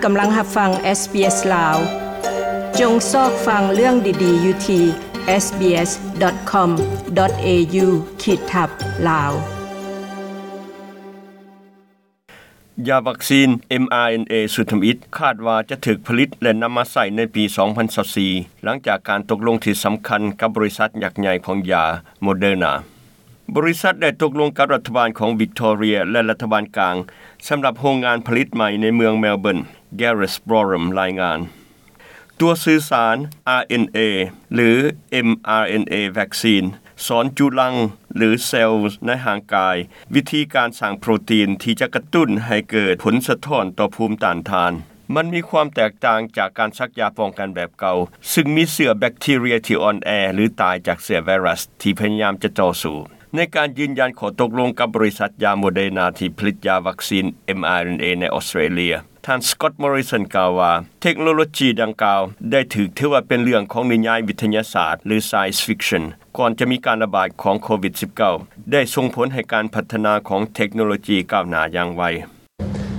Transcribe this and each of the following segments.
ກຳລັງຮັບຟັງ SBS ລາວ. ຈົ່ງຊອກຟັງເລື່ອງດີໆຢູ່ທີ່ SBS.com.au ຂີດທັບ ລາວ. ຢາວັກຊີນ mRNA ຊຸດທຳອິດ ຄາດວ່າຈະຖືກຜະລິດ ແລະ ນຳມາໃຊ້ໃນປີ ສອງພັນຊາວສີ່ ຫຼັງຈາກການຕົກລົງທີ່ສຳຄັນກັບບໍລິສັດຍັກໃຫຍ່ຂອງຢາ Moderna. ບໍລິສັດໄດ້ຕົກລົງກັບລັດຖະບານຂອງວິກຕໍເຣຍ ແລະ ລັດຖະບານກາງ ສຳລັບໂຮງງານຜະລິດໃໝ່ໃນເມືອງເມລເບີນ, Gareth Boreham ລາຍງານ. ຕົວສື່ສານ RNA ຫຼື mRNA vaccine ສອນຈຸລັງ ຫຼື ເຊວໃນຮ່າງກາຍ ວິທີການສ້າງໂປຣຕີນທີ່ຈະກະຕຸ້ນໃຫ້ເກີດຜົນສະທ້ອນຕໍ່ພູມຕ້ານທານ. ມັນມີຄວາມແຕກຕ່າງຈາກການສັກຢາປ້ອງກັນແບບເກົ່າ, ຊຶ່ງມີເຊື້ອແບັກທີເຣຍທີ່ອ່ອນແອ ຫຼື ຕາຍຈາກເຊື້ອໄວຣັສທີ່ພະຍາຍາມຈະຕໍ່ສູ້. ໃນການຢືນຢັນຂໍ້ຕົກລົງກັບບໍລິສັດຢາ Moderna ທີ່ຜະລິດຢາວັກຊີນ mRNA ໃນອອສເຕຣເລຍ, ທ່ານ Scott Morrison ກ່າວວ່າ ເທັກໂນໂລຈີດັ່ງກ່າວໄດ້ຖືກຖືວ່າເປັນເລື່ອງຂອງນິຍາຍວິທະຍາສາດ ຫຼື science fiction ກ່ອນຈະມີການລະບາດຂອງໂຄວິດສິບເກົ້າ ໄດ້ສົ່ງຜົນໃຫ້ການພັດທະນາຂອງເທັກໂນໂລຈີກ້າວໜ້າຢ່າງໄວ.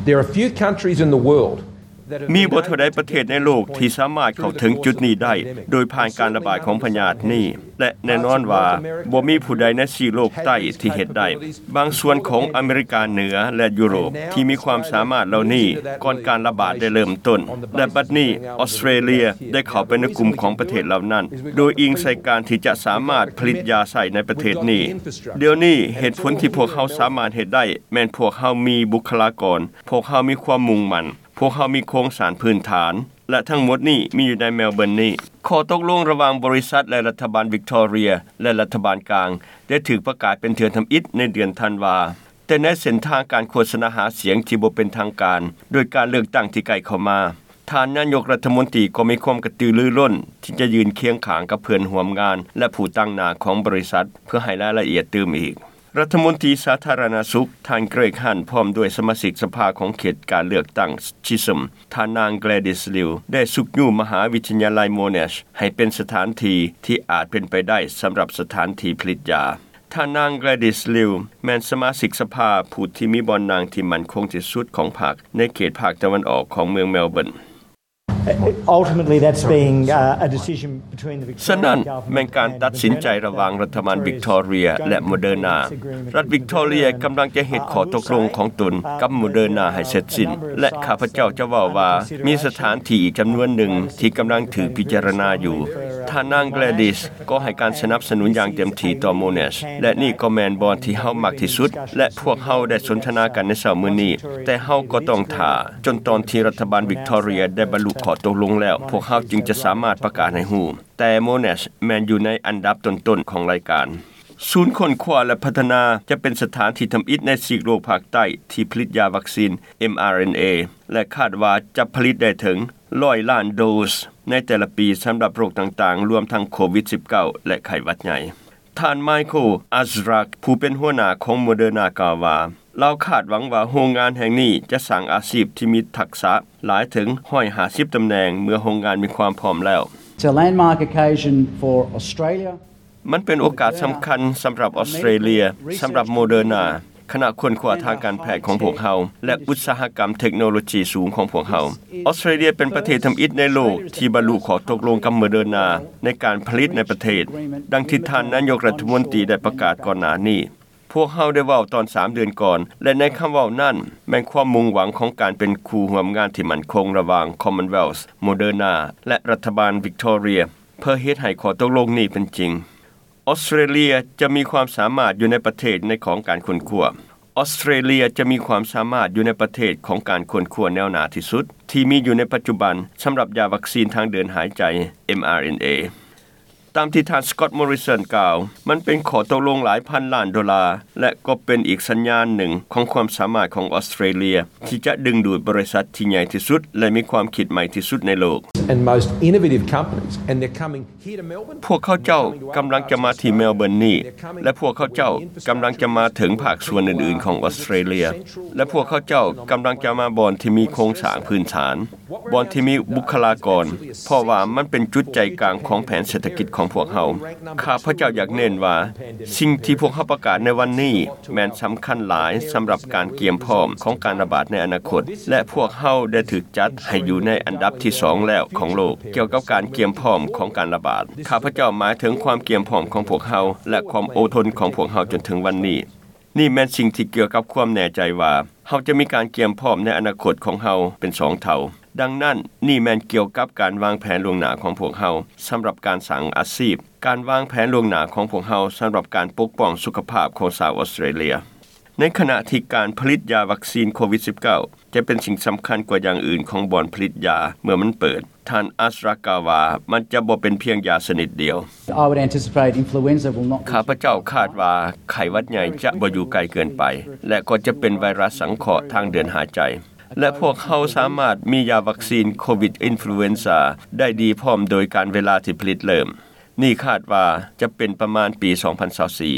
There are few countries in the world that have ມີບໍ່ເທົ່າໃດປະເທດໃນໂລກທີ່ສາມາດເຂົ້າເຖິງຈຸດນີ້ໄດ້ໂດຍຜ່ານການລະບາດຂອງພະຍາດນີ້ ແລະ ແນ່ນອນວ່າບໍ່ມີຜູ້ໃດໃນຊີກໂລກໃຕ້ທີ່ເຮັດໄດ້. ບາງສ່ວນຂອງອາເມລິກາເໜືອ ແລະ ຢູໂຣບທີ່ມີຄວາມສາມາດເຫຼົ່ານີ້ກ່ອນການລະບາດໄດ້ເລີ່ມຕົ້ນ ແລະ ບັດນີ້ອອສເຕຣເລຍໄດ້ເຂົ້າໄປໃນກຸ່ມຂອງປະເທດເຫຼົ່ານັ້ນ ໂດຍອີງໃສ່ການທີ່ຈະສາມາດຜະລິດຢາໃຊ້ໃນປະເທດນີ້. ດຽວນີ້ເຫດຜົນທີ່ພວກເຮົາສາມາດເຮັດໄດ້ແມ່ນພວກເຮົາມີບຸກຄະລາກອນ, ພວກເຮົາມີຄວາມມຸ່ງໝັ້ນ, ພວກເຮົາມີໂຄງສ້າງພື້ນຖານ ແລະ ທັງໝົດນີ້ມີຢູ່ໃນເມລເບີນນີ້. ຂໍ້ຕົກລົງລະຫວ່າງບໍລິສັດ ແລະ ລັດຖະບານວິກຕໍເຣຍ ແລະ ລັດຖະບານກາງ ໄດ້ຖືກປະກາດເປັນເທື່ອທຳອິດໃນເດືອນທັນວາ, ແຕ່ໃນເສັ້ນທາງການໂຄສະນາຫາສຽງທີ່ບໍ່ເປັນທາງການ ໂດຍການເລືອກຕັ້ງທີ່ໃກ້ເຂົ້າມາ, ທ່ານນາຍົກລັດຖະມົນຕີກໍມີຄວາມກະຕືລືລົ້ນທີ່ຈະຢືນຄຽງຂ້າງກັບເພື່ອນຮ່ວມງານ ແລະ ຜູ້ຕາງໜ້າຂອງບໍລິສັດ ເພື່ອໃຫ້ລາຍລະອຽດຕື່ມອີກ. ລັດຖະມົນຕີສາທາລະນະສຸກ ທ່ານ Greg Hunt ພ້ອມດ້ວຍສະມາຊິກສະພາຂອງເຂດການເລືອກຕັ້ງ Chisholm ທ່ານນາງ Gladys Liu ໄດ້ຊຸກຍູ້ມະຫາວິທະຍາໄລ Monash ໃຫ້ເປັນສະຖານທີ່ທີ່ອາດເປັນໄປໄດ້ສຳລັບສະຖານທີ່ຜະລິດຢາ. ທ່ານນາງ Gladys Liu ແມ່ນສະມາຊິກສະພາຜູ້ທີ່ມີບ່ອນນັ່ງທີ່ໝັ້ນຄົງທີ່ສຸດຂອງພັກໃນເຂດພາກຕາເວັນອອກຂອງເມືອງເມລເບີນ. Ultimately, that's being, uh, a decision between the Victorian government and the Moderna government. ສະນັ້ນ ແມ່ນການຕັດສິນໃຈລະຫວ່າງລັດຖະບານວິກຕໍເຣຍ ແລະ ໂມເດີນາ. ລັດວິກຕໍເຣຍກຳລັງຈະເຮັດຂໍ້ຕົກລົງຂອງຕົນກັບໂມເດີນາໃຫ້ເສັດສິ້ນ ແລະ ຂ້າພະເຈົ້າຈະເວົ້າວ່າມີສະຖານທີ່ອີກຈຳນວນໜຶ່ງທີ່ກຳລັງຖືກພິຈາລະນາຢູ່. ທ່ານນາງ Gladys ກໍໃຫ້ການສະໜັບສະໜູນຢ່າງເຕັມທີ່ຕໍ່ Monash ແລະ ນີ້ກໍແມ່ນບ່ອນທີ່ເຮົາມັກທີ່ສຸດ ແລະ ພວກເຮົາໄດ້ສົນທະນາກັນໃນເຊົ້າມື້ນີ້, ແຕ່ເຮົາກໍຕ້ອງຖ້າຈົນຕອນທີ່ລັດຖະບານວິກຕໍເຣຍໄດ້ບັນລຸຂໍ້ຕົກລົງແລ້ວ, ພວກເຮົາຈຶ່ງຈະສາມາດປະກາດໃຫ້ຮູ້. ແຕ່ Monash ແມ່ນຢູ່ໃນອັນດັບຕົ້ນໆຂອງລາຍການ. ສູນຄົ້ນຄວ້າ ແລະ ພັດທະນາຈະເປັນສະຖານທີ່ທຳອິດໃນຊີກໂລກພາກໃຕ້ທີ່ຜະລິດຢາວັກຊີນ mRNA ແລະ ຄາດວ່າຈະຜະລິດໄດ້ເຖິງຮ້ອຍລ້ານໂດສໃນແຕ່ລະປີສຳລັບໂລກຕ່າງໆ, ລວມທັງໂຄວິດສິບເກົ້າ ແລະ ໄຂ້ຫວັດໃຫຍ່. ທ່ານ Michael Azrak ຜູ້ເປັນຫົວໜ້າຂອງ Moderna ກ່າວວ່າ ລາວຄາດຫວັງວ່າໂຮງງານແຫ່ງນີ້ຈະສ້າງອາຊີບທີ່ມີທັກສະຫຼາຍເຖິງຮ້ອຍຫ້າສິບຕຳແໜ່ງເມື່ອໂຮງງານມີຄວາມພ້ອມແລ້ວ. It's a landmark occasion for Australia. ມັນເປັນໂອກາດສຳຄັນສຳລັບອອສເຕຣເລຍ, ສຳລັບໂມເດີນາ, ຄະນະຄົ້ນຄວ້າທາງການແພດຂອງພວກເຮົາ ແລະ ອຸດສາຫະກຳເທັກໂນໂລຈີສູງຂອງພວກເຮົາ. ອອສເຕຣເລຍເປັນປະເທດທຳອິດໃນໂລກທີ່ບັນລຸຂໍ້ຕົກລົງກັບໂມເດີນາໃນການຜະລິດໃນປະເທດ, ດັ່ງທີ່ທ່ານນາຍົກລັດຖະມົນຕີໄດ້ປະກາດກ່ອນໜ້ານີ້. ພວກເຮົາໄດ້ເວົ້າຕອນສາມເດືອນກ່ອນ ແລະ ໃນຄຳເວົ້ານັ້ນແມ່ນຄວາມມຸ່ງຫວັງຂອງການເປັນຄູ່ຮ່ວມງານທີ່ໝັ້ນຄົງລະຫວ່າງ Commonwealth, Moderna ແລະ ລັດຖະບານວິກຕໍເຣຍ ເພື່ອເຮັດໃຫ້ຂໍ້ຕົກລົງນີ້ເປັນຈິງ. ອອສເຕຣເລຍຈະມີຄວາມສາມາດຢູ່ໃນປະເທດໃນຂອງການຄົ້ນຄວ້າ. ອອສເຕຣເລຍຈະມີຄວາມສາມາດຢູ່ໃນປະເທດຂອງການຄົ້ນຄວ້າແນວໜ້າທີ່ສຸດທີ່ມີຢູ່ໃນປັດຈຸບັນສຳລັບຢາວັກຊີນທາງເດີນຫາຍໃຈ mRNA. ຕາມທີ່ທ່ານ Scott Morrison ກ່າວ, ມັນເປັນຂໍ້ຕົກລົງຫຼາຍພັນລ້ານໂດລາ ແລະ ກໍເປັນອີກສັນຍານໜຶ່ງຂອງຄວາມສາມາດຂອງອອສເຕຣເລຍທີ່ຈະດຶງດູດບໍລິສັດທີ່ໃຫຍ່ທີ່ສຸດ ແລະ ມີຄວາມຄິດໃໝ່ທີ່ສຸດໃນໂລກ. And most innovative companies, and they're coming here to Melbourne. ພວກເຂົາເຈົ້າກຳລັງຈະມາທີ່ເມລເບີນນີ້ ແລະ ພວກເຂົາເຈົ້າກຳລັງຈະມາເຖິງພາກສ່ວນອື່ນໆຂອງອອສເຕຣເລຍ ແລະ ພວກເຂົາເຈົ້າກຳລັງຈະມາບ່ອນທີ່ມີໂຄງສ້າງພື້ນຖານ. ບ່ອນທີ່ມີບຸກຄະລາກອນ, ເພາະວ່າມັນເປັນຈຸດໃຈກາງຂອງແຜນເສດຖະກິດຂອງພວກເຮົາ. ຂ້າພະເຈົ້າຢາກເນັ້ນວ່າ ສິ່ງທີ່ພວກເຮົາປະກາດໃນວັນນີ້ແມ່ນສຳຄັນຫຼາຍສຳລັບການກຽມພ້ອມຂອງການລະບາດໃນອະນາຄົດ ແລະ ພວກເຮົາໄດ້ຖືກຈັດໃຫ້ຢູ່ໃນອັນດັບທີສອງແລ້ວຂອງໂລກ ກ່ຽວກັບການກຽມພ້ອມຂອງການລະບາດ. ຂ້າພະເຈົ້າໝາຍເຖິງຄວາມກຽມພ້ອມຂອງພວກເຮົາ ແລະ ຄວາມອົດທົນຂອງພວກເຮົາຈົນເຖິງວັນນີ້. ນີ້ແມ່ນສິ່ງທີ່ກ່ຽວກັບຄວາມແນ່ໃຈວ່າ ເຮົາຈະມີການກຽມພ້ອມໃນອະນາຄົດຂອງເຮົາເປັນສອງເທົ່າ. ດັ່ງນັ້ນ, ນີ້ແມ່ນກ່ຽວກັບການວາງແຜນລ່ວງໜ້າຂອງພວກເຮົາສຳລັບການສ້າງອາຊີບ, ການວາງແຜນລ່ວງໜ້າຂອງພວກເຮົາສຳລັບການປົກປ້ອງສຸຂະພາບຂອງຊາວອອສເຕຣເລຍ. ໃນຂະນະທີ່ການຜະລິດຢາວັກຊີນໂຄວິດສິບເກົ້າ ຈະເປັນສິ່ງສຳຄັນກວ່າຢ່າງອື່ນຂອງບ່ອນຜະລິດຢາເມື່ອມັນເປີດ, ທ່ານ Azra ກ່າວວ່າ ມັນຈະບໍ່ເປັນພຽງຢາຊະນິດດຽວ. I would anticipate influenza will not ຂ້າພະເຈົ້າຄາດວ່າໄຂ້ຫວັດໃຫຍ່ຈະບໍ່ຢູ່ໄກເກີນໄປ ແລະ ກໍຈະເປັນໄວຣັສສັງເຄາະທາງເດີນຫາຍໃຈ ແລະ ພວກເຮົາສາມາດມີຢາວັກຊີນໂຄວິດອິນຟລູເອນຊາໄດ້ດີພ້ອມໂດຍການເວລາທີ່ຜະລິດເລີ່ມ. ນີ້ຄາດວ່າຈະເປັນປະມານປີສອງພັນຊາວສີ່.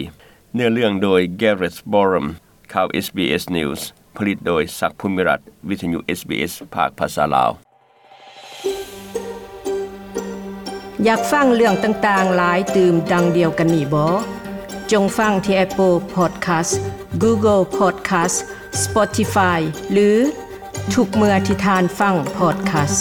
ເນື້ອເລື່ອງໂດຍ Gareth Borum ຂ່າວ SBS News ຜະລິດໂດຍ ສັກ ພູມິລັດ ວິທະຍຸ SBS ພາກພາສາລາວ. ຢາກຟັງເລື່ອງຕ່າງໆຫຼາຍຕື່ມດັ່ງດຽວກັນນີ້ບໍ? ຈົ່ງຟັງທີ່ Apple Podcast, Google Podcast, Spotify ຫຼື ທຸກເມື່ອທີ່ທ່ານຟັງ podcast.